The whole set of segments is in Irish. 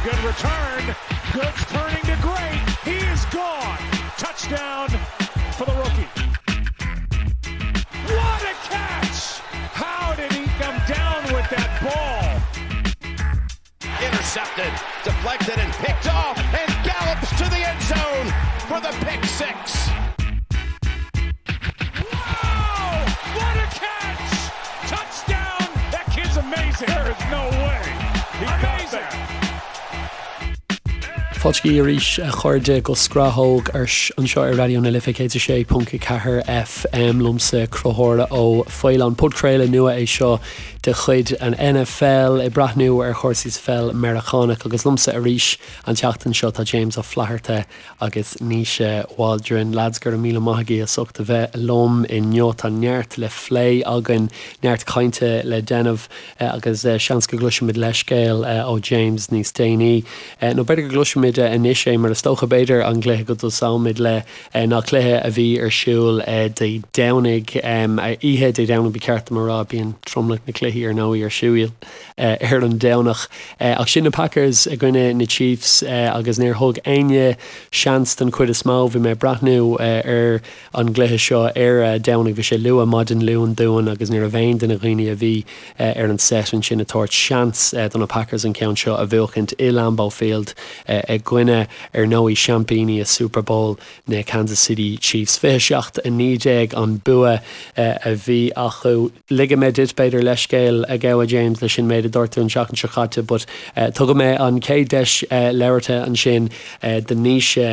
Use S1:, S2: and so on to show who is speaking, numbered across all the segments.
S1: Good return. Good turning to great. He is gone. Touchdown for the rookie. What a catch! How did he come down with that ball?
S2: Intercepted, deflected, and picked off, and gallops to the end zone for the pick
S1: 6. Wow! What a catch! Touchdown! That kid's amazing. There is no way. He amazing.
S3: Fáilte arís a chairde go Scrathóg anseo ar Raidió na Life 106.4 FM liomsa Conchúr Ó Faoláin. Podchraoladh nua é seo de chuid an NFL ag breathnú ar chúrsaí sa pheil Meiriceánach agus liomsa arís an tseachtain seo tá James Ó Flatharta agus Naoise Waldron. Lads, go raibh míle maith agaibh as ucht a bheith liom inniu. Tá neart le phlé againn, neart cainte le déanamh agus seans go gcloisfimid leithscéal ó James níos déanaí. Nó b'fhéidir go gcloisfimid anois é mar is dócha b'fhéidir an gcluiche go dtosóimid le ná cluiche a bhí ar siúl Dé Domhnaigh, oíche Dé Domhnaigh ba cheart dom a rá, bíonn tromlach na cluichí ar ndóigh ar siúl ar an Domhnach. Ach sin na Packers i gcoinne na Chiefs agus níor thug éinne seans den chuid is mó. Bhí mé ag breathnú ar an gcluiche seo ar Domhnach, bhí sé luath maidin Luain dúinn agus ní raibh aon duine dhaoine a bhí ar an set ansin ag tabhairt seans do na Packers an ceann seo a bhuachaint i Lambeau Field i gcoinne, ar ndóigh, seaimpíní i Super Bowl na Kansas City Chiefs. 27, 19 an bua a bhí acu. Ligfidh mé duit, b'fhéidir, leithscéal a ghabháil James leis an méid a dúirt tú an tseachtain seo caite but tugfaidh mé an chéad deis labhartha ansin do Naoise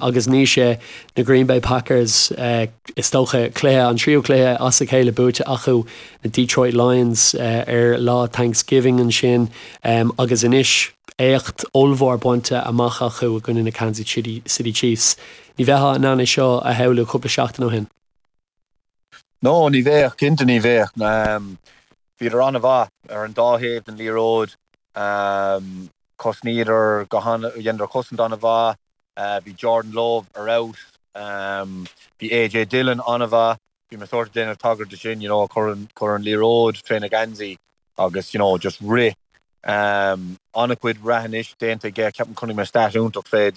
S3: agus Naoise, na Green Bay Packers, is dócha, cluiche, an tríú cluiche as a chéile buaite acu, na Detroit Lions ar lá Thanksgiving ansin agus anois éacht ollmhór bainte amach acu i gcoinne na Kansas City Chiefs. Ní bheifeá in ann é seo a shamhlú cúpla seachtain ó shin.
S4: No, ní bheadh, cinnte ní bheadh. Bhíodar an-mhaith ar an dá thaobh den liathróid. Chosnaíodar go han, dheineadar cosaint an-mhaith. Bhí Jordan Love ar fheabhas. Bhí AJ Dillon an-mhaith. Bhí mé sórt ag déanamh tagairt de sin, you know, chuir an, chuir an liathróid féna gheansaí agus, you know, just rith. An-chuid rath anois déanta aige. Ceapaim chonaic mé stat iontach fé,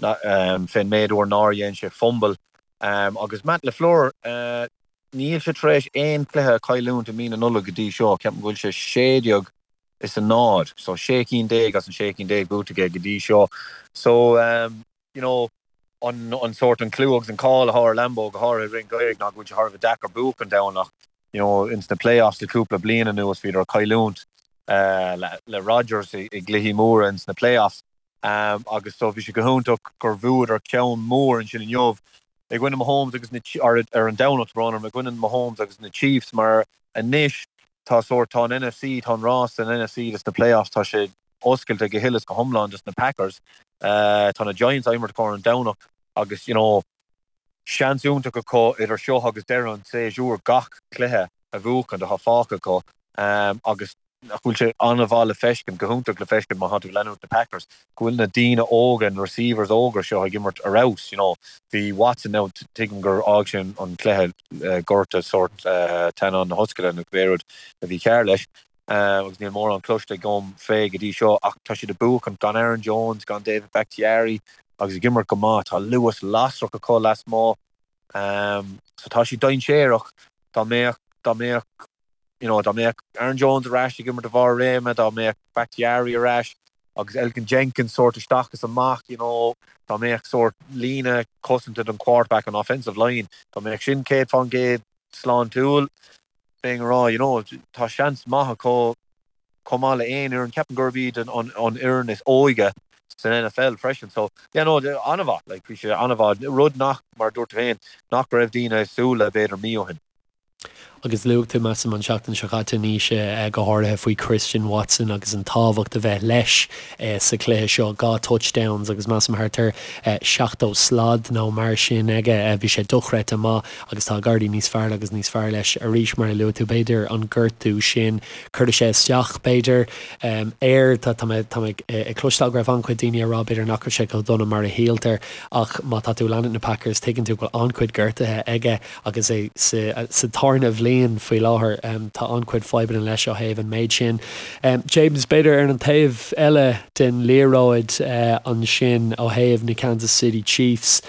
S4: fén méid uair nár dhein sé fumble. Agus Matt LaFleur, níl sé tar éis aon chluiche a chailliúint i mí na Nollag go dtí seo. Ceapaim go bhfuil sé 16 is a 0, so 16 cinn as an 16 cinn buaite aige go dtí seo. So, you know, an an sórt an clú agus an cáil atá ar Lambeau go háirithe i rith an gheimhridh ná go bhfuil sé thar a bheith deacair buachaint ann ach you know ins na playoffs le cúpla bliain anuas bhíodar ag cailliúint le le Rodgers i i gcluichí móra ins na playoffs um, agus so bhí sé go hiontach gur bhuadar ceann mór ansin inniu i gcoinne Mahomes agus na ar ar an Domhnach tá brón orm i gcoinne Mahomes agus na Chiefs mar anois tá sórt tá an NFC tá an rás san NFC dos na playoffs tá sé oscailte go huile is go hiomlán dos na Packers. Tá na Giants á imirt acu ar an Domhnach agus you know seans iontach acu idir seo agus deireadh an tséasúir gach cluiche a bhuachaint atá fágtha acu agus nach bhfuil sé an-mhaith le feiscint, go hiontach le feiscint má tá tú ag leanúint na Packers, go bhfuil na daoine óga, na receivers óga seo ag imirt ar fheabhas, you know. Bhí Watson now, tuigim gur fhág sé an cluiche gorta sórt teannán na hoscaile nó cibé rud a bhí cearr leis. agus níl mórán cloiste agam fé go dtí seo ach tá siad ag buachaint gan Aaron Jones, gan David Bakhtiari agus ag imirt go maith. Tá luas lasrach acu lasmuigh so tá siad dainséarach. Dá mbeadh, dá mbeadh, you know, dá mbeadh Aaron Jones ar ais ag imirt a bharr réime, dá mbeadh Bakhtiari ar ais agus Elgton Jenkins sórt isteach is amach, you know, dá mbeadh sórt líne cosanta don quarterback, an offensive line, dá mbeadh sin 100% sláintiúil, bheinn ag rá, you know, tá seans maith acu chomh maith le aon fhoireann. Ceapaim gurb iad an fhoireann is óige san NFL freisin. So, yeah, no, an-mhaith, like, bhí sé an-mhaith. Rud nach, mar a dúirt tú féin, nach raibh daoine ag súil le b'fhéidir mí ó shin.
S3: Agus luaigh tú, measaim, an tseachtain seo caite, Naoise, go háirithe faoi Christian Watson agus an tábhacht a bheith leis sa chluiche seo, 2 touchdowns agus measaim thart ar 70 slad nó mar sin aige. Bhí sé dochreidte maith agus tá ag éirí níos fearr agus níos fearr leis arís, mar a luaigh tú, b'fhéidir an gortú sin, cuirfidh sé isteach, b'fhéidir, air. Tá mé tá mé ag cloisteáil go raibh an-chuid daoine ag rá, b'fhéidir, nach raibh sé chomh dona mar a shíltear ach má tá tú ag leanúint na Packers, tuigeann tú go bhfuil an-chuid gortuithe aige agus é sa sa tarna bhliain. bliain faoi láthair. Tá an-chuid fadhbanna leis ó thaobh an méid sin. James, b'fhéidir ar an taobh eile den liathróid ansin ó thaobh na Kansas City Chiefs,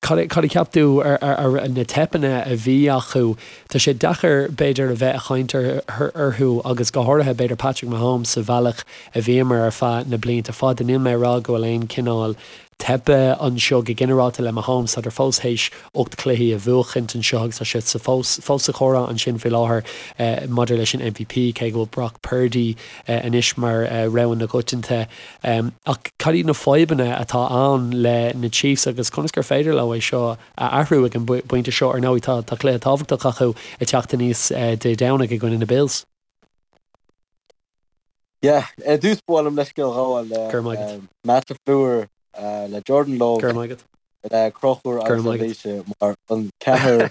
S3: cad a cheap tú ar na teipeanna a bhí acu? Tá sé deacair b'fhéidir a bheith a chaint orthu agus go háirithe b'fhéidir Patrick Mahomes sa bhealach a bhíomar ar feadh na blianta fada. Níl mé ag rá go bhfuil aon chineál teipe anseo go ginearálta le Mahomes. Tádar fós théis 8 cluichí a bhuachaint anseo agus tá sé sa fós fós sa chomhrá ansin faoi láthair maidir leis an MVP, cé go bhfuil Brock Purdy anois mar rogha na gcoitianta. Ach cad iad na fadhbanna atá ann le na Chiefs agus conas gur féidir leo é seo a athrú ag an bpointe seo? Ar ndóigh tá cluiche tábhachtach acu ag teacht aníos Dé Domhnaigh i gcoinne na Bills.
S5: Yeah, ar dtús ba mhaith liom leithscéal a ghabháil le
S3: Go raibh maith agat.
S5: Matt LaFleur, le Jordan Love,
S3: Go raibh maith agat.
S5: le Conchúr
S3: Go
S5: agus
S3: raibh
S5: le
S3: maith agat.
S5: Naoise mar an ceathrar,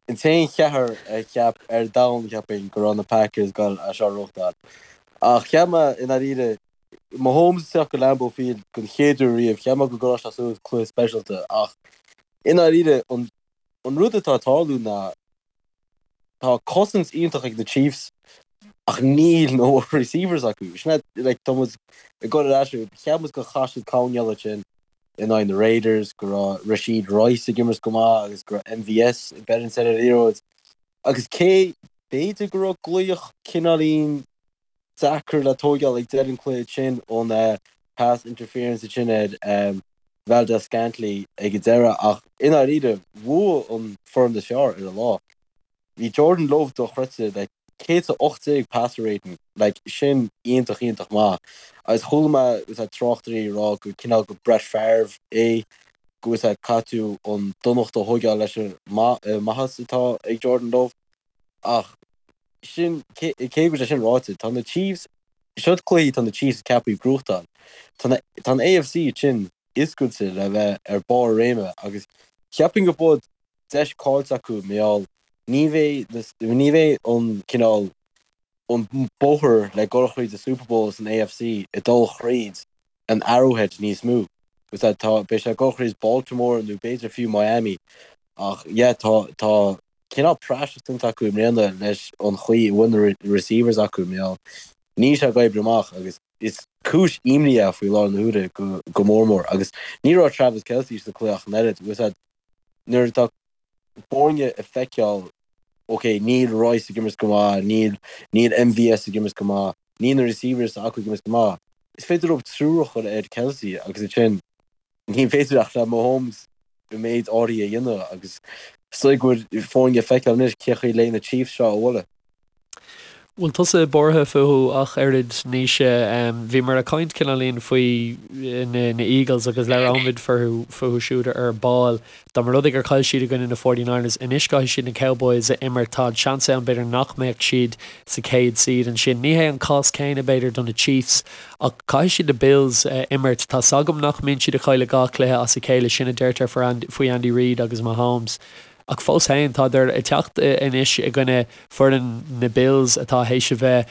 S5: an t-aon cheathrar a cheap ar domhan cheapfainn go raibh na Packers ag dul é seo a ghnóthachtáil. Ach cheap mé i ndáiríre, Mahomes ag teacht go Lambeau Field don chéad uair riamh, cheap mé go gcuirfeadh sé suas cluiche speisialta ach i ndáiríre an an rud atá ag tarlú ná Tá cosaint iontach ag na Chiefs ach níl na receivers acu. Sin é, like, tá muid ag dul ar ais, cheap muid gur chaith siad coinneáil ansin in aghaidh na Raiders, go raibh Rashee Rice ag imirt go maith agus go raibh MVS ag beireann ar an liathróid. Agus cé, b'fhéidir go raibh glaoch cineáilín deacair le tóigeáil ag deireadh an cluiche sin ón pass interference ansin ar Valdes-Scantling ag an deireadh ach i ndáiríre bhuaigh an foireann is fearr ar an lá. Bhí Jordan Love dochreidte le 118 passer rating, like sin iontach iontach maith agus chuala mé tráchtairí ag rá go cineál go Brett Favre é go bhfuil caithfidh tú an donacht a thóigeáil leis an maitheas atá ag Jordan Love. Ach sin, cé go bhfuil sé sin ráite, tá na Chiefs, siod cluichí tá na Chiefs ceaptha gnóthachtáil. Tá na, tá an AFC sin oscailte le bheith ar barr a réime agus cheapfainn go bhfuil deis caillte acu mar gheall ní bheidh na, ní bheidh an cineál, an bóthar le dul thríd an Super Bowl san AFC ag dul thríd an Arrowhead níos mó. Tá, beidh sé ag dul thríd Baltimore nó b'fhéidir fiú Miami ach yeah tá, tá cineál praiseach déanta acu i mbliana leis an chaoi a bhfuil na receivers acu mar gheall níl sé ag oibriú amach agus is cúis imní é faoi láthair na huaire go, go mór mór agus ní raibh Travis Kelce sa cluiche ach an oiread. Nuair atá foirne ag feiceáil, ok, níl Rice ag imirt go maith, níl, níl MVS ag imirt go maith, níl na receivers acu ag imirt go maith, is féidir leo triúr a chur ar Kelce agus ansin ní féidir ach le Mahomes an méid áirithe a dhéanamh agus is dóigh go bhfuil foirne ag feiceáil anois cé chaoi le na Chiefs seo a bhualadh.
S3: Bhfuil tusa buartha fúthu ach oiread, Naoise? Bhíomar ag caint cineáilín faoi na Eagles agus labhróimid fúthu fúthu siúd ar ball. Dá mba rud é gur chaill siad i gcoinne na Forty Niners, anois caithfidh siad na Cowboys a imirt. Tá an seans ann b'fhéidir nach mbeadh siad sa chéad seed ansin. Ní hé an cás céanna b'fhéidir do na Chiefs ach caithfidh siad na Bills a imirt. Tá's agam nach mbíonn siad ag cailleadh 2 chluiche as a chéile, sin a deirtear faoi Andy Reid agus Mahomes. Ach fós féin, tádar ag teacht anois i gcoinne foireann na Bills atá théis a bheith,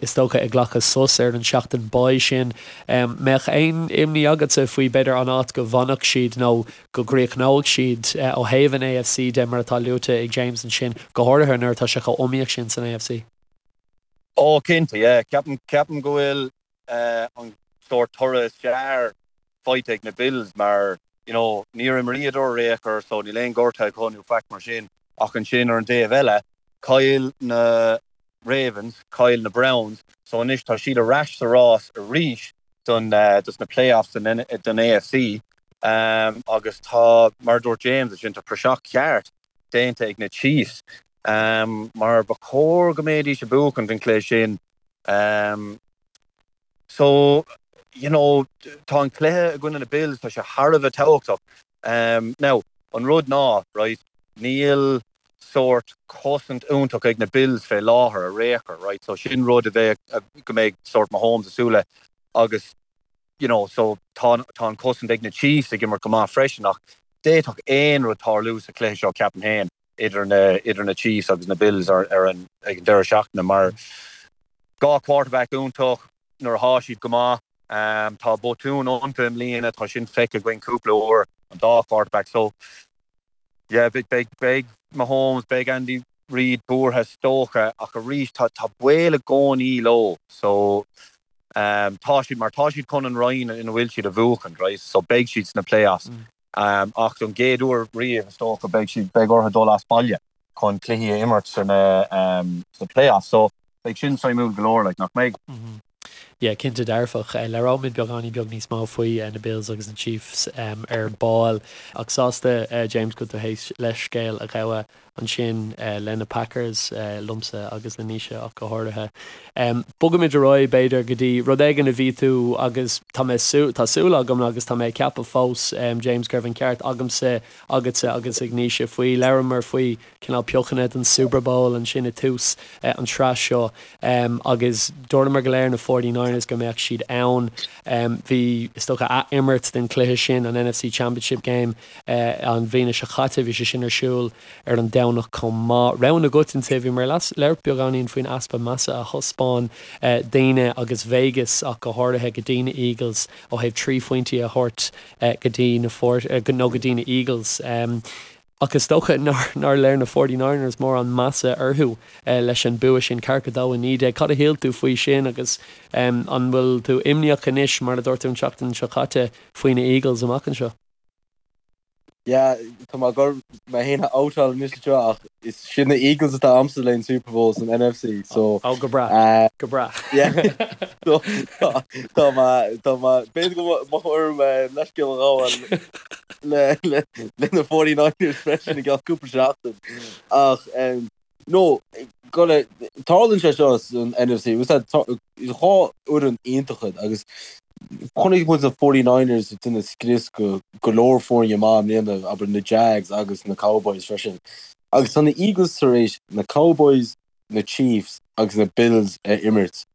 S3: is dócha, ag glacadh sos ar an seachtain bye sin. Mbeadh aon imní agatsa faoi, b'fhéidir, an áit go bhfanfadh siad nó go gcríochnóidh siad ó thaobh an AFC de, mar atá luaite ag James ansin, go háirithe nuair atá sé chomh iomaíoch sin san AFC?
S4: Ó, cinnte, yeah. Ceapaim, ceapaim go bhfuil an sórt toradh is fearr faighte ag na Bills mar you know níor imríodar ar aon chor so níl aon gortaithe acu nó faic mar sin ach ansin ar an dtaobh eile chaill na Ravens, chaill na Browns so anois tá siad ar ais sa rás arís don dos na playoffs don don AFC agus tá mar a dúirt James ansin tá praiseach ceart déanta ag na Chiefs mar ba chóir go mbeidís ag buachaint an cluiche sin So, you know, tá an cluiche i gcoinne na Bills, tá sé thar a bheith tábhachtach. Now, an rud ná, right, níl sórt cosaint iontach ag na Bills fé láthair ar aon chor, right, so sin rud a bheidh, go mbeidh sórt Mahomes ag súil le agus, you know, so tá, tá an cosaint ag na Chiefs ag imirt go maith freisin ach d'fhéadfadh aon rud tarlú sa chluiche seo, ceapaim féin. idir na idir na Chiefs agus na Bills ar ar an ag an deireadh seachtaine mar 2 quarterback iontach nuair atá siad go maith. Tá botúin iontu i mbliana, tá sin feicthe againn cúpla uair, an dá quarterback. So yeah, beidh beidh beidh Mahomes, beidh Andy. Reid buartha is dócha ach arís tá tá baol i gcónaí leo so tá siad mar tá siad chun an roinn ina bhfuil siad a bhuachaint right so beidh siad sna playoffs ach don gcéad uair riamh is dócha beidh siad beidh orthu dul as baile chun cluichí a imirt sna sna playoffs so beidh sin suimiúil go leor like nach mbeidh?
S3: Yeah, cinnte dearfach. Labhróimid beagáinín beag níos mó faoi na Bills agus na Chiefs ar ball. Ach sásta, James, go bhfuil tú théis leithscéal a ghabhadh ansin le na Packers, liomsa agus le Naoise ach go háirithe. Bogaimid ar aghaidh, b'fhéidir, go dtí rud éigin a bhí tú agus tá mé, tá súil agam agus tá mé ag ceapadh fós, James, go raibh an ceart agamsa, agatsa agus ag Naoise faoi. Labhramar faoi cineál piocanna don Super Bowl ansin i tús an tsraith seo agus dúramar go léir na 49ers go mbeadh siad ann. Bhí, is dócha, ath-imirt den chluiche sin, an NFC Championship Game, an bhliain seo chaite. Bhí sé sin ar siúl ar an Domhnach chomh maith. Rogha agat inti. Bhíomar ag labhairt beagáinín faoin easpa measa a thaispeáin daoine agus Vegas ach go háirithe go dtí na Eagles ó thaobh 3 phointí a thabhairt go dtí na nó go dtí na Eagles. Ach is dócha nár léir na Forty Niners mórán measa orthu leis an bua sin, ceathracha 2, 19. Cad a shíl tú faoi sin agus an bhfuil tú imníoch anois, mar a dúirt tú an tseachtain seo caite, faoi na Eagles amach anseo?
S5: Yeah, tá mé ag dul mé féin a outáil anois anseo ach is siad na Eagles atá a'msa le an Super Bowl san NFC so
S3: Oh, go breá, go breá.
S5: Yeah, so tá mé, tá mé, b'fhéidir go mbeadh orm leithscéal a ghabháil. le na 49ers freisin i gceann cúpla seachtain. Ach no, go tarlaíonn sé seo san NFC, dhá fhoireann iontach iad agus chonaic muid na 49ers ag déanamh scrios go go leor foirne maith i mbliana, abair na Jags agus na Cowboys freisin. Agus tá na Eagles tar éis na Cowboys, na Chiefs agus na Bills a imirt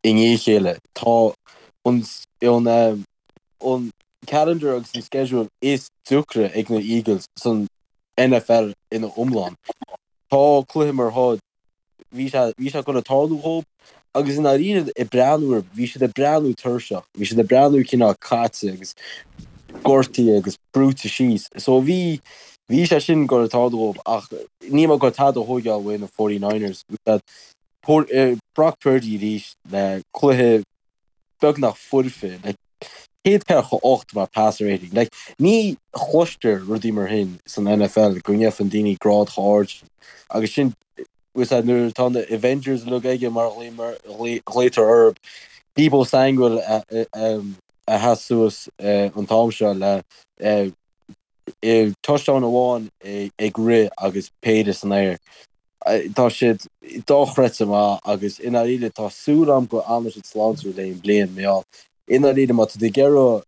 S5: i ndiaidh a chéile. Tá an an an calendar agus an schedule is deacra ag na Eagles san NFL ina iomlán. Tá cluiche mar seo, bhí sé, bhí sé ag dul a tarlú dhóibh agus i ndáiríre ag breathnú orthu, bhí siad ag breathnú tuirseach, bhí siad ag breathnú cineál caite agus gortaithe agus brúite síos. So bhí, bhí sé sin ag dul a tarlú dhóibh ach níl mé ag dul tada a thóigeáil uaidh na 49ers. Brock Purdy arís le cluiche beagnach foirfe, like, 148 mar passer rating. Like, ní chloistear rudaí mar sin san NFL go ngeibheann daoine grád chomh ard sin. Agus sin, bhfuil a fhios agat, nuair atá na Avengers uilig aige mar a ghlaotar orthu, Deebo Samuel a sheas suas an t-am seo le touchdown amháin ag rith agus péire san aer. Tá siad dochreidte maith agus i ndáiríre tá súil agam go fhanann siad sláintiúil le an bliain mar gheall i ndáiríre má tá tú ag iarraidh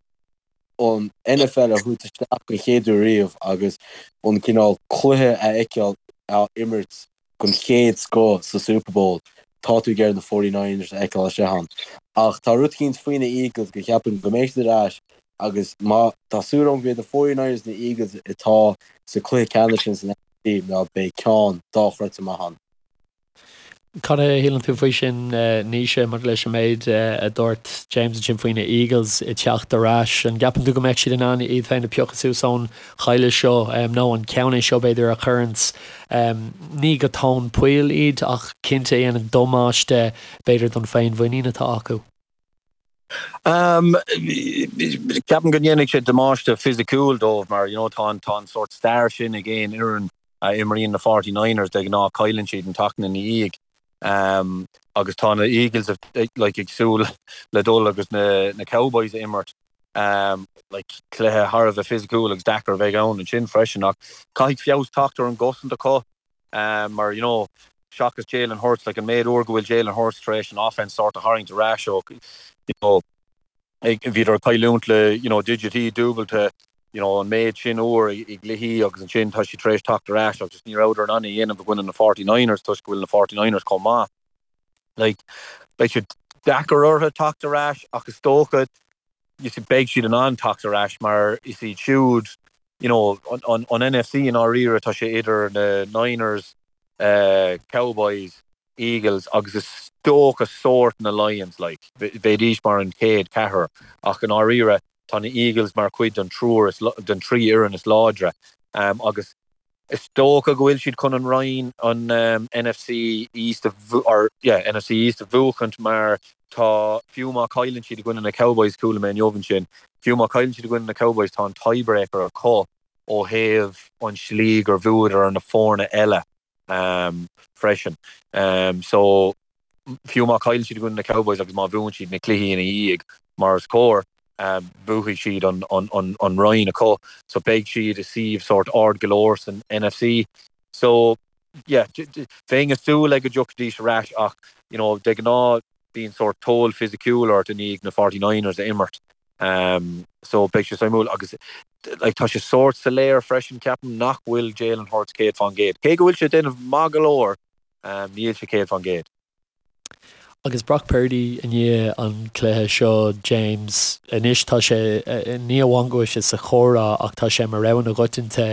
S5: an NFL a thabhairt isteach den chéad uair riamh agus an cineál cluiche a fheiceáil á imirt den chéad scoth sa Super Bowl, tá tú ag iarraidh na 49ers a fheiceáil istigh ann. Ach tá rud eicínt faoi na Eagles go cheapaim go mbeidh siad ar ais agus má tá súil agam go mbeidh na 49ers na Eagles atá sa cluiche ceannais sin san NFC mar beidh ceann dochreidte maith ann.
S3: Cad a shíleann tú faoi sin, Naoise, maidir leis an méid a dúirt James ansin faoi na Eagles ag teacht ar ais? An gceapann tú go mbeadh siad in ann iad féin a phiocadh suas ón chailleadh seo, nó an ceann é seo, b'fhéidir, a chuireanns ní go tóin poill iad ach cinnte a dhéanann damáiste, b'fhéidir, don féinmhuinín atá acu?
S4: Ceapaim go ndéanfaidh sé damáiste fisiciúil dóibh mar, you know, tá an, tá an sórt stair sin ag aon fhoireann a imríonn na Forty Niners, de ghnáth cailleann siad an tseachtain ina dhiaidh. Agus tá na Eagles like ag súil le dul agus na, na Cowboys a imirt. Like cluiche thar a bheith fisiciúil agus deacair a bheidh ann ansin freisin ach caithfidh feabhas teacht ar an gcosaint acu mar you know seachas Jalen Hurts like an méid uair go bhfuil Jalen Hurts tar éis an offense sort a tharraingt ar ais ó you know bhíodar ag cailliúint le you know digití dúbailte you know an méid sin uair i gcluichí agus ansin tá siad tar éis teacht ar ais agus ní rabhadar in ann é a dhéanamh i gcoinne na 49ers toisc go bhfuil na 49ers chomh maith. Like, beidh sé deacair orthu teacht ar ais ach is dócha you see, beidh siad in ann teacht ar ais mar is iad siúd you know, an, an NFC i ndáiríre tá sé idir na Niners, uh, Cowboys, Eagles agus is dócha sórt na Lions like, bheidís mar an chéad ceathrar ach i ndáiríre tá na Eagles mar chuid den triúr den trí fhoireann is láidre um, agus. Is dócha go bhfuil siad chun an roinn, an NFC East a, or yeah, NFC East a bhuachaint mar tá, fiú má chailleann siad i gcoinne na Cowboys, chuala mé inniu ansin, fiú má chailleann siad i gcoinne na Cowboys tá an tiebreaker acu ó thaobh an slí gur bhuadar ar na foirne eile freisin. So fiú má chailleann siad i gcoinne na Cowboys agus má bhuann siad na cluichí ina dhiaidh mar is cóir, buafaidh siad an roinn acu. So beidh siad i suíomh sórt ard go leor san NFC. So yeah, bheinn ag súil le go dtiocfaidís ar ais ach you know de ghnáth bíonn sórt toll fisiciúil ort i ndiaidh na 49ers a imirt. So beidh sé suimiúil agus like tá sé sórt soiléir freisin ceapaim nach bhfuil Jalen Hurts 100%. Cé go bhfuil sé ag déanamh maith go leor, níl sé 100%.
S3: Agus Brock Purdy i ndiaidh an chluiche seo, James, anois tá sé, ní amháin go bhfuil sé sa chomhrá ach tá sé mar rogha na gcoitianta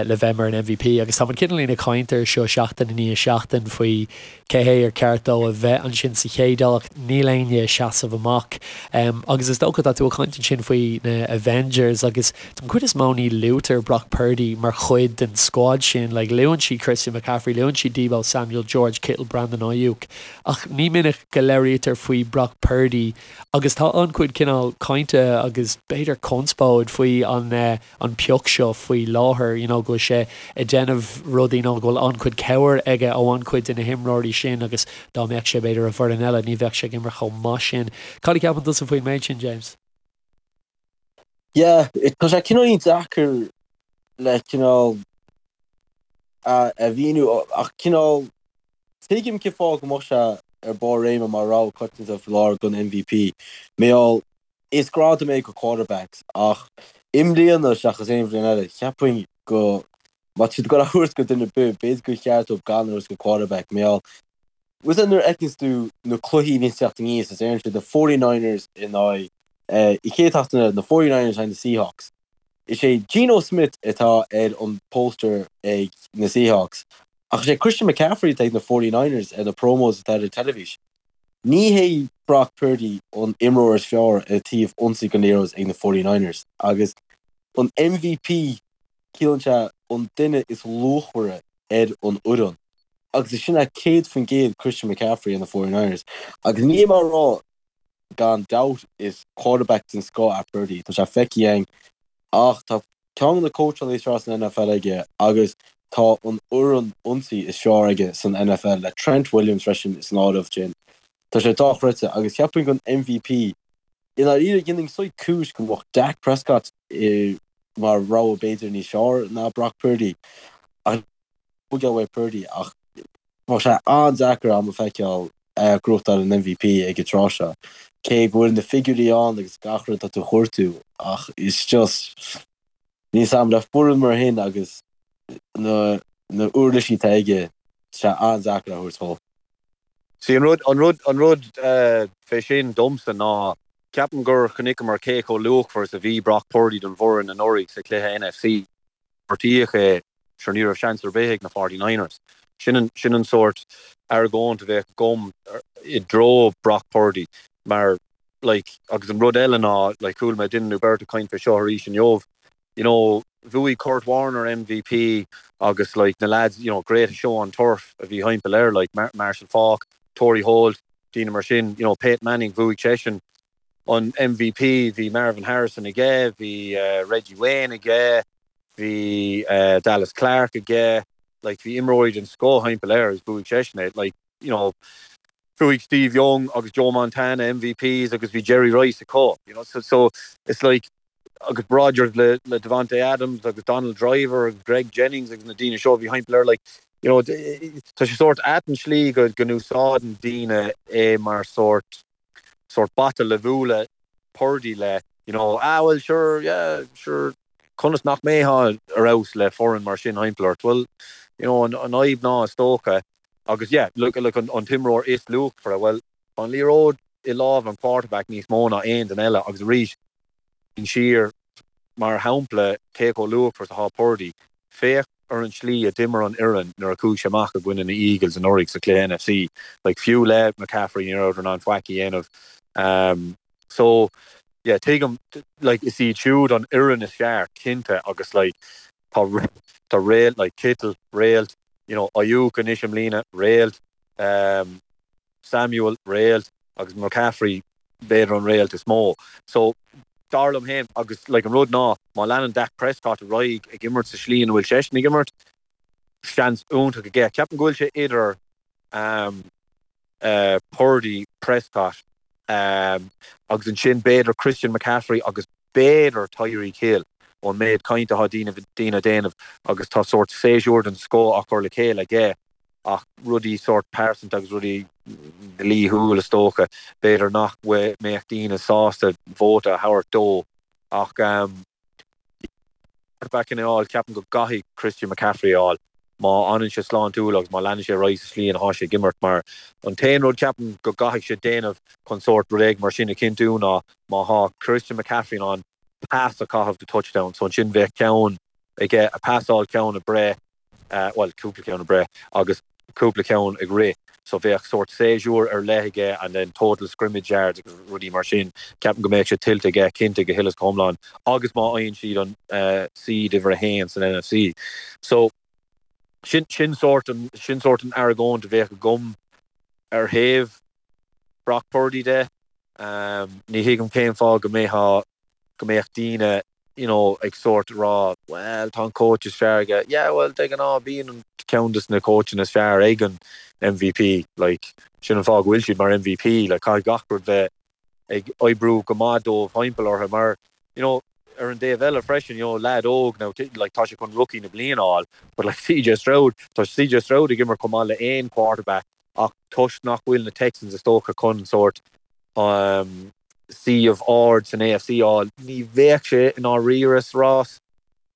S3: le bheith mar an MVP agus tá muid cineáilín ag caint air seo seachtain i ndiaidh seachtain faoi cé hé ar ceart dó a bheith ansin sa chéad áit, níl éinne ag seasamh amach. Agus is dócha, tá tú ag caint ansin faoi na Avengers agus Den chuid is mó ní luaitear Brock Purdy mar chuid den squad sin. Like, luann siad Christian McCaffrey, luann siad Deebo Samuel, George Kittle, Brandon Aiyuk ach ní minic go labhraítear faoi Brock Purdy agus tá an-chuid cineál cainte agus b'fhéidir conspóid faoi an an pioc seo faoi láthair, you know, go bhfuil sé ag déanamh rudaí nó go bhfuil an-chuid cabhair aige ó an-chuid de na himreoirí sin agus dá mbeadh sé b'fhéidir i bhfoireann eile ní bheadh sé ag imirt chomh maith sin. Cad a cheapann tusa faoin méid sin, James?
S5: Yeah, tá sé cineáilín deacair le cineál a mhíniú ach cineál tuigim cén fáth go mbeadh sé ar barr réime mar rogha coitianta faoi láthair don MVP. Mar gheall, is gradam é go quarterbacks ach i mbliana seachas aon bhliain eile, cheapfainn go má tá siad ag dul a thabhairt go duine ar bith, b'fhéidir gur cheart dóibh gan a thabhairt go quarterback mar gheall Bhfuil a fhios agat nuair a fheiceanns tú na cluichí a bhíonn ag teacht aníos is deireann siad na 49ers in aghaidh an chéad tseachtain eile, na 49ers in aghaidh na Seahawks. Is é Geno Smith atá ar an poster ag na Seahawks ach is é Christian McCaffrey atá ag na 49ers ar na promos atá ar an teilifís. Ní hé Brock Purdy an imreoir is fearr ar taobh ionsaí den liathróid ag na 49ers agus an MVP ciallaíonn sé an duine is luachmhaire ar an fhoireann agus is sin é 100% Christian McCaffrey ar na 49ers agus níl mé ag rá gan dabht is quarterback den scoth é Purdy, tá sé feicthe againn ach tá ceann de na cóitseálaithe is fearr san NFL aige agus tá an fhoireann ionsaí is fearr aige san NFL le Trent Williams freisin san áireamh sin. Tá sé dochreidte agus cheapfainn don MVP I ndáiríre, dhéanfainn saghas cúis go mbeadh Dak Prescott mar rogha b'fhéidir níos fearr ná Brock Purdy. Ach buail uaidh Purdy ach bheadh sé an-deacair agam a feiceáil é ag gnóthachtáil an MVP ag an tráth seo. Cé go bhfuil na figiúirí ann agus gach rud atá tú a chuartú ach it's just níl a fhios agam le foireann mar shin agus na na uirlisí atá aige tá sé an-deacair a thabhairt dhó.
S4: See, an rud, an rud, an rud fé sin domsa ná, ceapaim gur chonaiceamar cé chomh luachmhar is a bhí Brock Purdy don bhfoireann anuraidh sa chluiche NFC. Gortaíodh é, sure ní raibh seans ar bith ag na 49ers. Sin an, sin an sórt argóint a bheadh agam i dtreo Brock Purdy mar, like, agus an rud eile ná, like, chuala mé duine nó beirt ag caint fé seo arís inniu, you know, bhuaigh Kurt Warner MVP agus like na lads, you know, greatest show on turf a bhí thimpeall air, like Marshall Faulk, Torry Holt, daoine mar sin, you know, Peyton Manning, bhuaigh seisean an MVP, bhí Marvin Harrison aige, bhí uh, Reggie Wayne aige, bhí uh, Dallas Clark aige, like bhí imreoirí den scoth thimpeall air agus bhuaigh seisean é, like, you know, bhuaigh Steve Young agus Joe Montana MVPs agus bhí Jerry Rice acu, you know, so, so it's like, agus Rodgers le le Davante Adams agus Donald Driver agus Greg Jennings agus na daoine seo a bhí thimpeall air like you know tá sé sórt ait an slí go go n-úsáideann daoine é mar sórt sórt bata le bualadh Purdy le you know ah well sure yeah sure conas nach mbeifeá ar fheabhas le foireann mar sin thimpeall ort well you know an an fhadhb ná is dócha agus yeah look look an an t-imreoir is luachmhaire well Tá an liathróid i lámh an quarterback níos mó ná aon duine eile agus arís, siar, mar shampla, cé chomh luachmhar is atá Purdy, féach ar an tslí a d'imir an fhoireann nuair a chuaigh sé amach i gcoinne na Eagles anuraidh sa chluiche NFC. Like, fiú le McCaffrey ní rabhadar in ann faic a dhéanamh. So, yeah, tuigim, like, is iad siúd an fhoireann is fearr, cinnte, agus like, tá, Tá réalt like Kittle, réalt, you know, Aiyuk anois i mbliana, réalt, um, Samuel, réalt, agus McCaffrey, b'fhéidir an réalt is mó. So, dar liom féin, agus like an rud ná, má leanann Dak Prescott ar aghaidh ag imirt sa slí ina bhfuil seisean ag imirt, seans iontach aige. Ceapaim go bhfuil sé idir um, uh, Purdy, Prescott, um, agus ansin b'fhéidir Christian McCaffrey agus b'fhéidir Tyreek Hill ón méid cainte atá daoine daoine ag déanamh agus tá sórt séasúr den scoth á chur le chéile aige ach rudaí sórt pearsanta agus rudaí dlíthiúil is dócha, b'fhéidir nach mbeadh daoine sásta vóta a thabhairt dó ach um, quarterback a fháil, ceapaim go gcaithfidh Christian McCaffrey a fháil má fhanann sé sláintiúil agus má leanann sé ar aghaidh sa slí ina thá sé ag imirt mar an t-aon rud ceapaim go gcaithfidh sé déanamh chun sórt rud éigin mar sin a chinntiú ná má thá Christian McCaffrey in ann pas a chaitheamh do touchdown so ansin bheadh ceann aige ag pasáil ceann ag breith bhuel, cúpla ceann ag breith agus cúpla ceann ag rith so bheadh sórt séasúr ar leith aige and then total scrimmage yards agus rudaí mar sin. Ceapaim go mbeadh sé tuillte aige cinnte go huile is go hiomlán agus má fhaigheann siad an seed uimhir a haon san NFC. So sin sin sórt an sin sórt an argóint a bheadh agam ar thaobh Brock Purdy de. Ní thuigim cén fáth go mbeadh go mbeadh daoine you know, ag sórt rá, well, tá an coach is fearr aige. Yeah, well, de ghnáth bíonn an ceann des na coachanna is fearr ag an MVP, like, sin an fáth go bhfuil siad mar MVP, like, caithfidh gach rud bheith ag oibriú go maith dóibh thimpeall orthu mar, you know, ar an dtaobh eile freisin, you know, leaid óg now, like, tá sé chun rookie na bliana a fháil, but like CJ Stroud, tá CJ Stroud ag imirt chomh maith le aon quarterback ach toisc nach bhfuil na Texans is dócha chun sórt suíomh ard san AFC a fháil, ní bheadh sé i ndáiríre sa rás.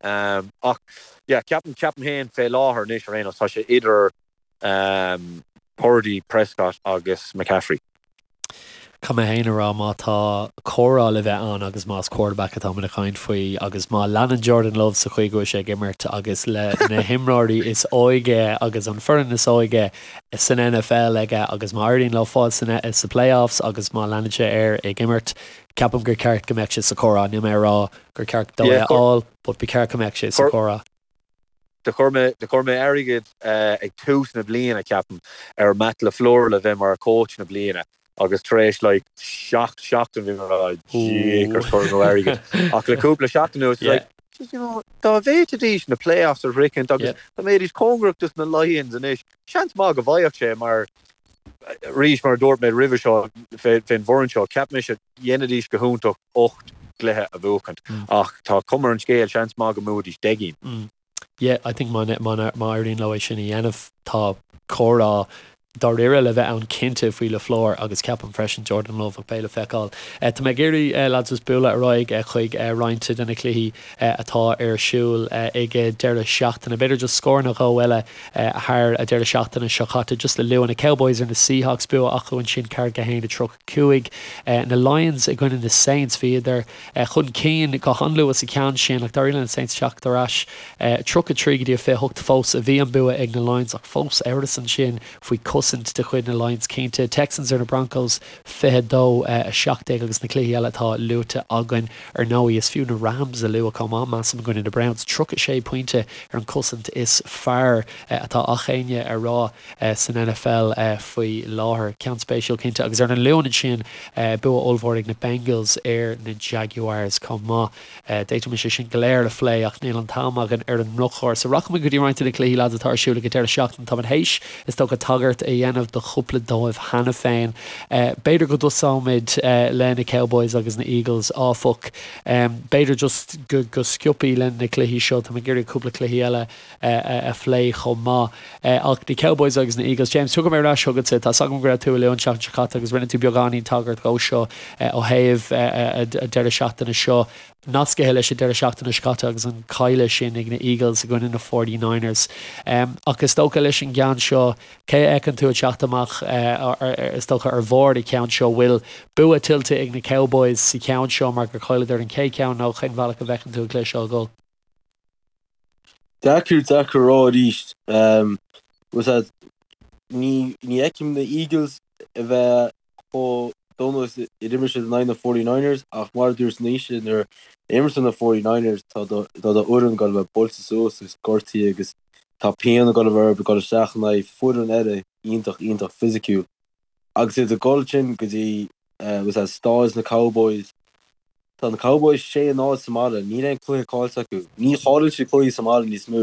S4: Ach yeah, ceapaim, ceapaim féin fé láthair anois ar aon nós, tá sé idir Purdy, Prescott agus McCaffrey.
S3: Caithfidh mé féin a rá má tá comhrá le bheith ann agus más quarterback atáimid ag caint faoi agus má leanann Jordan Love sa chaoi go bhfuil sé ag imirt agus le na himreoirí is óige agus an foireann is óige san NFL aige agus má éiríonn leo fáil sa playoffs agus má leanann sé air ag imirt, ceapaim gur ceart go mbeadh sé sa chomhrá. Níl mé ag rá gur ceart dó é a fháil but ba cheart go mbeadh sé sa chomhrá.
S4: Do chuir mé, do chuir mé airgead ag tús na bliana, ceapaim, ar Matt LaFleur le bheith mar coach na bliana agus tar éis like seacht seachtain bhí mé ag rá jeekers chuir mé airgead. Ach le cúpla seachtain anuas, like, just, you know, dá bhféadfaidís na playoffs a shroichint agus dá mbeidís cóngarach dos na Lions anois, seans maith go bhfaigheadh sé mar, arís mar a dúirt mé roimhe seo fén bhfoireann seo, cheap mise dhéanfaidís go hiontach 8 gcluiche a bhuachaint ach tá cuma ar an scéal, seans maith go mbuafaidís 10
S3: gcinn. Yeah, I think má má éiríonn leo é sin a dhéanamh, tá comhrá dáiríre le bheith ann cinnte faoi LaFleur agus ceapaim freisin Jordan Love ach beidh le feiceáil. Tá mé ag iarraidh lads just bualadh ar aghaidh chuig roinnt de na cluichí atá ar siúl ag deireadh seachtaine. B'fhéidir just scór nó dhó eile thar an deireadh seachtaine seo caite just le lua na Cowboys ar na Seahawks bua acu ansin 41 30. 5. Na Lions i gcoinne na Saints, bhíodar chun cinn go han-luath sa cheann sin ach d'éirigh le na Saints teacht ar ais. 33 go dtí 28 fós a bhí an bua ag na Lions ach fós amhras ansin faoi chosaint de chuid na Lions cinnte. Texans ar na Broncos 22, 17 agus na cluichí eile atá luaite againn ar ndóigh. Is fiú na Rams a lua chomh maith, measaim, i gcoinne na Browns. 36 pointe ar an chosaint is fearr atá ach éinne a rá. san NFL faoi láthair. Ceann spéisiúil cinnte. Agus ar an Luan ansin, bua ollmhór ag na Bengals ar na Jaguars chomh maith. D'fhéadfaimis é sin go léir a phlé ach níl an t-am againn ar an ndrochuair. So rachaimid go dtí roinnt de na cluichí lads atá ar siúl ag an deireadh seachtaine. Táimid théis, is dócha, tagairt a dhéanamh do chúpla dóibh cheana féin. B'fhéidir go dtosóimid le na Cowboys agus na Eagles áfach. B'fhéidir just go sciobthaí le na cluichí seo. Táim ag iarraidh cúpla cluichí eile a phlé chomh maith. Ach na Cowboys agus na Eagles, James, tiocfaidh mé ar ais chugatsa. Tá 's agam go raibh tú ag lua an tseachtain seo caite agus rinne tú beagáinín tagairt dhó seo ó thaobh an deireadh seachtaine seo, nascaithe leis an deireadh seachtaine seo caite agus an cailleadh sin ag na Eagles i gcoinne na 49ers. Ach is dócha leis an gceann seo, cé a fheiceann tú ag teacht amach, is dócha, ar bharr an cheann seo? Bhfuil bua tuillte ag na Cowboys sa cheann seo mar gur chailleadar an chéad cheann nó cén bhealach a bhfeiceann tú an cluiche seo ag dul?
S5: Deacair, deacair a rá arís. Bhfuil a fhios agat, ní, ní fheicim na Eagles a bheith chomh. don nós ar imir siad in aghaidh na 49ers ach mar a dúirt Naoise nuair a imríonn na 49ers tá do tá do fhoireann ag dul a bheith buailte suas agus gortaithe agus tá pian ag dul a bheith orthu ag dul isteach in aghaidh foireann eile iontach iontach fisiciúil agus iad ag dul sin go dtí was that stáid na Cowboys Tá na Cowboys 6-0 sa mbaile, níl aon cluiche caillte acu. Ní chailleann siad cluichí sa mbaile níos mó.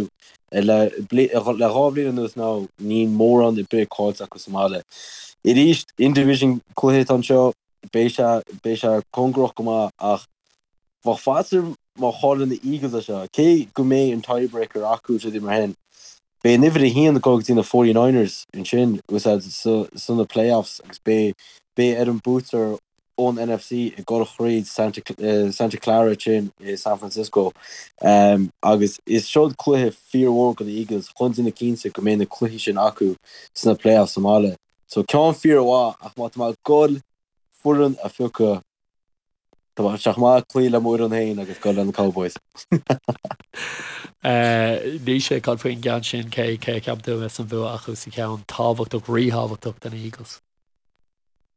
S5: Le dhá bhliain anuas now, níl mórán ar bith caillte acu sa mbaile. Arís, in-division cluiche atá anseo, beidh sé, beidh sé cóngarach go maith ach bheadh faitíos orm má chailleann na Eagles é seo, cé go mbeidh an tiebreaker acu is rudaí mar sin, beidh an uimhir a haon ag dul go dtí na 49ers ansin, sna playoffs agus beidh, beidh ar an buaiteoir ón NFC ag dul thríd Santa Clara ansin i San Francisco agus is seod cluiche fíormhór do na Eagles chun déanamh cinnte go mbeidh na cluichí sin acu sna playoffs sa mbaile. So ceann fíormhaith ach má tá mé ag dul foireann a phiocadh tá sé chomh maith cloí le m'fhoireann féin agus dul le na Cowboys.
S3: Naoise, cad faoin gceann sin, cé cé a cheapann tú a bheas an bua acu sa cheann tábhachtach, ríthábhachtach do na Eagles?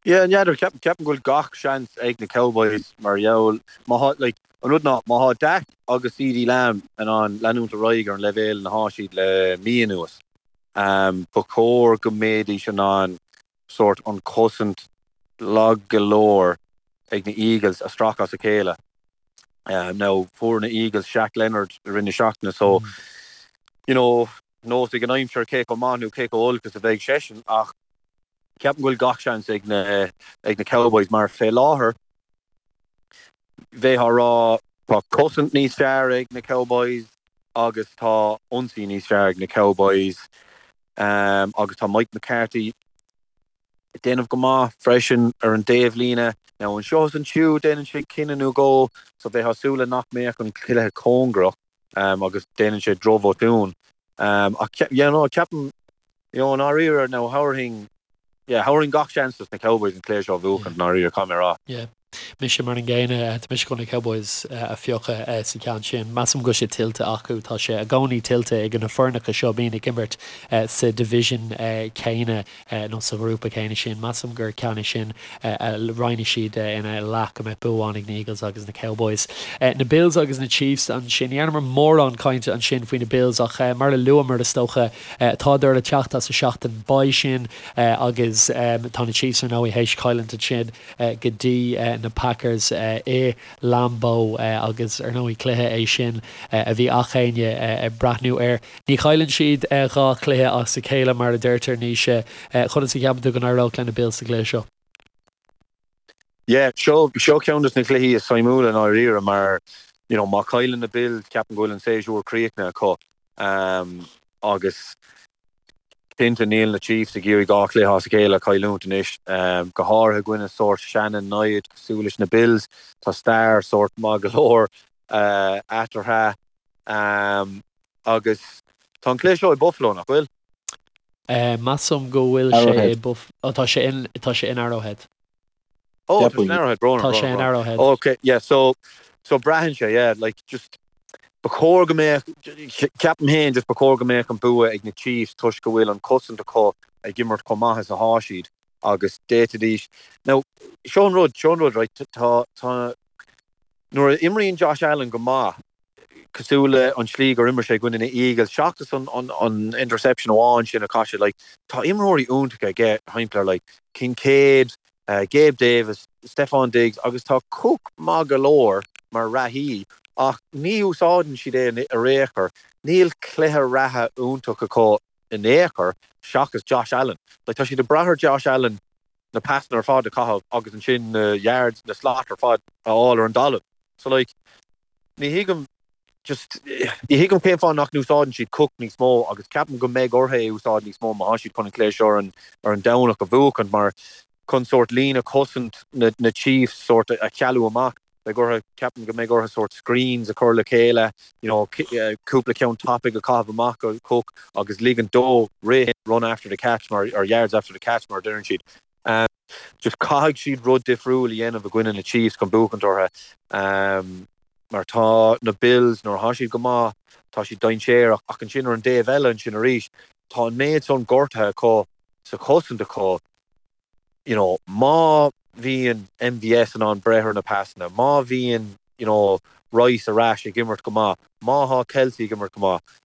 S4: Yeah, n'fheadar, ceapaim go bhfuil gach seans ag na Cowboys mar gheall, má thá, like, an rud ná, má thá Dak agus CeeDee Lamb in ann leanúint ar aghaidh ar an leibhéal ina thá siad le mí anuas, ba chóir go mbeidís in ann sórt an chosaint lag go leor ag na Eagles a stracadh as a chéile. Now, fuair na Eagles Shaq Leonard i rith na seachtaine so, you know, nós ag an aimsir cé chomh maith nó cé chomh olc is a bheidh seisean ach Ceapaim go bhfuil gach seans ag na ag na Cowboys mar fé láthair bheifeá ag rá tá cosaint níos fearr ag na Cowboys agus tá ionsaí níos fearr ag na Cowboys agus tá Mike McCarthy ag déanamh go maith freisin ar an dtaobhlíne. Now anseo is ansiúd déanann sé cinneadh nó dhó so bheifeá ag súil le nach mbeadh an cluiche cóngarach. agus déanann sé drochbhotún. Ach yeah no ceapaim you know i ndáiríre now thabharfainn yeah thabharfainn gach seans dos na Cowboys an cluiche seo a bhuachan i ndáiríre caithfidh mé a rá.
S3: Yeah. Mise mar an gcéanna, tá mise chun na Cowboys a phiocadh sa cheann sin. Measaim go bhfuil sé tuillte acu. Tá sé i gcónaí tuillte ag na foirneacha seo a bhíonn ag imirt sa division céanna. nó sa ghrúpa céanna sin. Measaim gur ceann é sin a roinnfidh siad ina leath, go mbeidh bua amháin ag na Eagles agus na Cowboys. Na Bills agus na Chiefs ansin. Ní dhearnamar mórán cainte ansin faoi na Bills ach mar a luamar, is dócha, tádar ag teacht as a seachtain bye sin agus tá na Chiefs ar ndóigh théis cailliúint ansin go dtí na Packers i Lambeau agus ar ndóigh cluiche é sin a bhí ach éinne ag breathnú air. Ní chailleann siad 2 chluiche as a chéile mar a deirtear, Naoise. Conas a cheapann tú go n-éireodh le na Bills sa gcluiche seo?
S4: Yeah, seo seo ceann de na cluichí is suimiúla i ndáiríre mar you know má chailleann na Bills ceapaim go bhfuil an séasúr críochnaithe acu agus cinnte níl na Chiefs ag iarraidh 2 chluiche as a chéile a chailliúint anois, go háirithe i gcoinne sórt seana-namhaid cosúil leis na Bills. Tá stair sórt maith go leor eatarthu. Agus tá an cluiche seo i Buffalo, nach bhfuil?
S3: Measaim go bhfuil sé i Buff-, oh tá sé in, tá sé in Arrowhead.
S4: Oh, tá sé in Arrowhead, brón,
S3: Tá sé in Arrowhead.
S4: Ok, yeah, so, so braitheann sé, yeah, like, just, ba chóir go mbeadh, ceapaim féin, just ba chóir go mbeadh an bua ag na Chiefs toisc go bhfuil an cosaint acu ag imirt chomh maith is athá siad agus d'fhéadfaidís, now, seo an rud, seo an rud, right, tá, tá, Nuair a imríonn Josh Allen go maith, cosúil le an tslí gur imir sé i gcoinne na Eagles, seachas an interception amháin sin a chaith sé, like, tá imreoirí iontacha aige thimpeall air, like, Kincaid, Gabe Davis, Stefon Diggs agus tá Cook maith go leor mar reathaí ach ní úsáideann siad é ar aon chor. Níl cluiche reatha iontach acu in aon chor seachas Josh Allen. Like, tá siad ag brath ar Josh Allen na pasanna ar fad a chaitheamh agus ansin na yards, na slot ar fad a fháil ar an dtalamh. So like, ní thuigim just, ní thuigim cén fáth nach n-úsáideann siad Cook níos mó agus ceapaim go mbeidh orthu é a úsáid níos mó má tá siad chun an cluiche seo ar an, ar an Domhnach a bhuachaint mar chun sórt líne cosaint na, na Chiefs sórt a chealú amach. Beidh orthu, ceapaim go mbeidh orthu sórt screens a chur le chéile, you know, cúpla ceann tapaidh a chaitheamh amach go Cook agus ligint dó rith, run after the catch mar, or yards after the catch mar a deireann siad. Just caithfidh siad rud difriúil a dhéanamh i gcoinne na Chiefs chun buachaint orthu mar tá na Bills, nuair atá siad go maith, tá siad dainséarach ach ansin ar an dtaobh eile ansin arís, tá an méid san gortaithe acu sa chosaint acu. you know, má bhíonn MVS in ann breith ar na pasanna, má bhíonn, you know, Rice ar ais ag imirt go maith, má thá Kelce ag imirt go maith,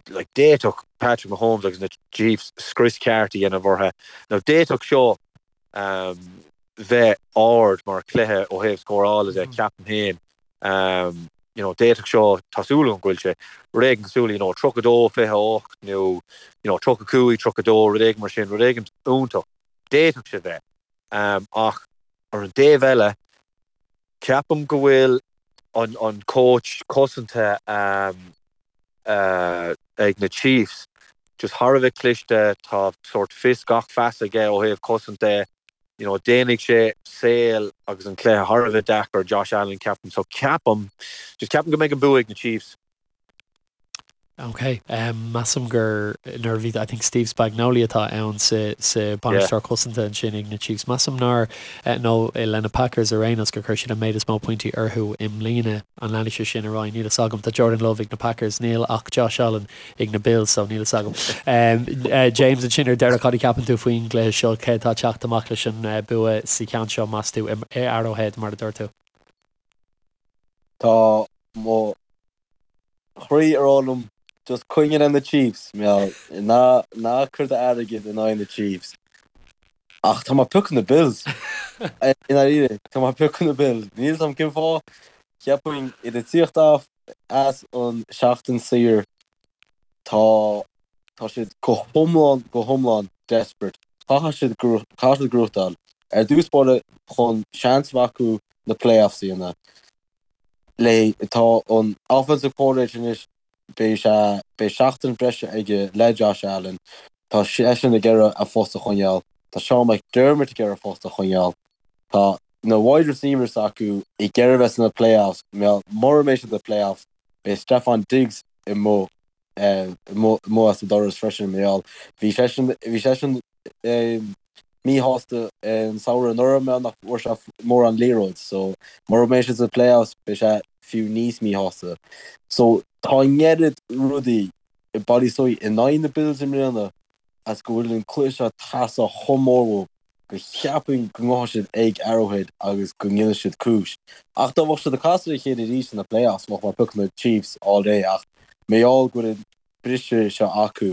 S4: like, d'fhéadfadh Patrick Mahomes agus na Chiefs scrios ceart a dhéanamh orthu. Now, d'fhéadfadh seo um, bheith ard mar chluiche ó thaobh scórála de, ceapaim féin. Um, you know, d'fhéadfadh seo, tá súil agam go bhfuil sé, rud éigin cosúil, you know, 32, 28 nó, you know, 35, 32, rud éigin mar sin, rud éigin iontach. D'fhéadfadh sé bheith. Um, ach ar an dtaobh eile, ceapaim go bhfuil an, an coach cosanta um, uh, ag na Chiefs just thar a bheith cliste, tá sort fios gach feasa aige ó thaobh cosaint de, you know, déanfaidh sé saol agus an cluiche thar a bheith deacair Josh Allen, ceapaim. So ceapaim, just ceapaim go mbeidh an bua ag na Chiefs.
S3: Ok, um, measaim gur nuair a bhí, I think Steve Spagnuolo atá ann sa, sa bainisteoir cosanta ansin ag na Chiefs. Measaim nár, eh, nó eh, le na Packers ar aon nós gur chuir siad an méid is mó pointí orthu i mbliana. An leanfaidh sé sin ar aghaidh? Níl fhios agam. Tá Jordan Love ag na Packers, níl ach Josh Allen ag na Bills so níl fhios agam. James, ansin ar deireadh, cad a cheapann tú faoin gcluiche seo? Cé atá ag teacht amach leis an bua sa cheann seo, meas tú, i Arrowhead, mar a dúirt tú?
S5: Tá mo chroí ag rá liom just coinnigh le na Chiefs, ná ná cuir d'airgead in aghaidh na Chiefs. Ach tá mé ag piocadh na Bills. I ndáiríre, tá mé ag piocadh na Bills. Níl fhios agam cén fáth. Cheapfainn iad ag tíocht off as an seachtain saor, tá tá siad go hiomlán go hiomlán desperate. Caithfidh siad caithfidh siad gnóthachtáil ar dtús báire chun seans a bheith acu na playoffs a dhéanamh. Le tá an offensive coordinator anois beidh sé beidh seachtain breise aige le Josh Allen. Tá seisean ag iarraidh a phost a choinneáil. Tá Sean McDermott ag iarraidh a phost a choinneáil. Tá na wide receivers acu ag iarraidh bheith sna playoffs, mura mbeidh siad sna playoffs, beidh Stefon Diggs amuigh amuigh as an doras freisin mar gheall bhí seisean bhí seisean míshásta an samhradh anuraidh mar nach bhfuair sé mórán liathróid so mura mbeidh siad sna playoffs beidh sé fiú níos míshásta. So tá an oiread rudaí ag bailiú suas in aghaidh na Bills i mbliana as go bhfuil an cluiche seo ag teastáil chomh mór uathu go cheapfainn go ngabhfaidh siad ag Arrowhead agus go ndéanfaidh siad cúis. Ach dá mbeadh siad ag casadh a chéile arís sna playoffs bheadh mé ag piocadh na Chiefs all day ach mar gheall go bhfuil an briseadh seo acu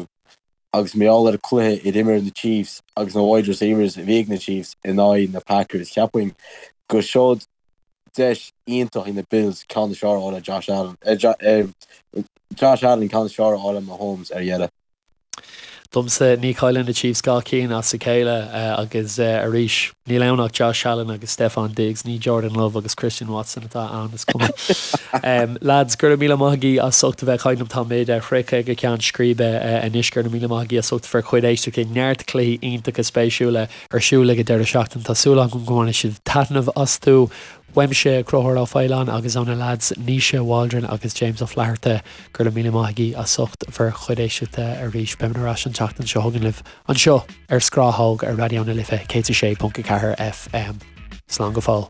S5: agus mar gheall ar an cluiche a d'imir na Chiefs agus na wide receivers a bhí ag na Chiefs in aghaidh na Packers cheapfainn go seod deis iontach ag na Bills ceann is fearr a fháil ar Josh Allen Josh Allen ceann is fearr a fháil ar Mahomes ar dheireadh.
S3: Domsa, ní chailleann na Chiefs dhá cinn as a chéile agus arís, níl ann ach Josh Allen agus Stefon Diggs, ní Jordan Love agus Christian Watson atá ann, is cuma. Lads, go raibh míle maith agaibh as ucht a bheith ag caint liom. Táimid sroichte ag an gceann scríbe anois. Go raibh míle maith agaibh as ucht bhur chuid éisteachta. Neart cluichí iontacha spéisiúla ar siúl ag an deireadh seachtaine. Tá súil agam go mbainfidh sibh taitneamh astu. Uaimse, Conchúr Ó Faoláin, agus ó na leaids Naoise Waldron agus James Ó Flatharta, go raibh míle maith agaibh as ucht bhur chuid éisteachta arís. Beimid ar ais an tseachtain seo chugainn libh anseo ar Scrathóg ar Raidió na Life 106.4 FM. Slán go fóill.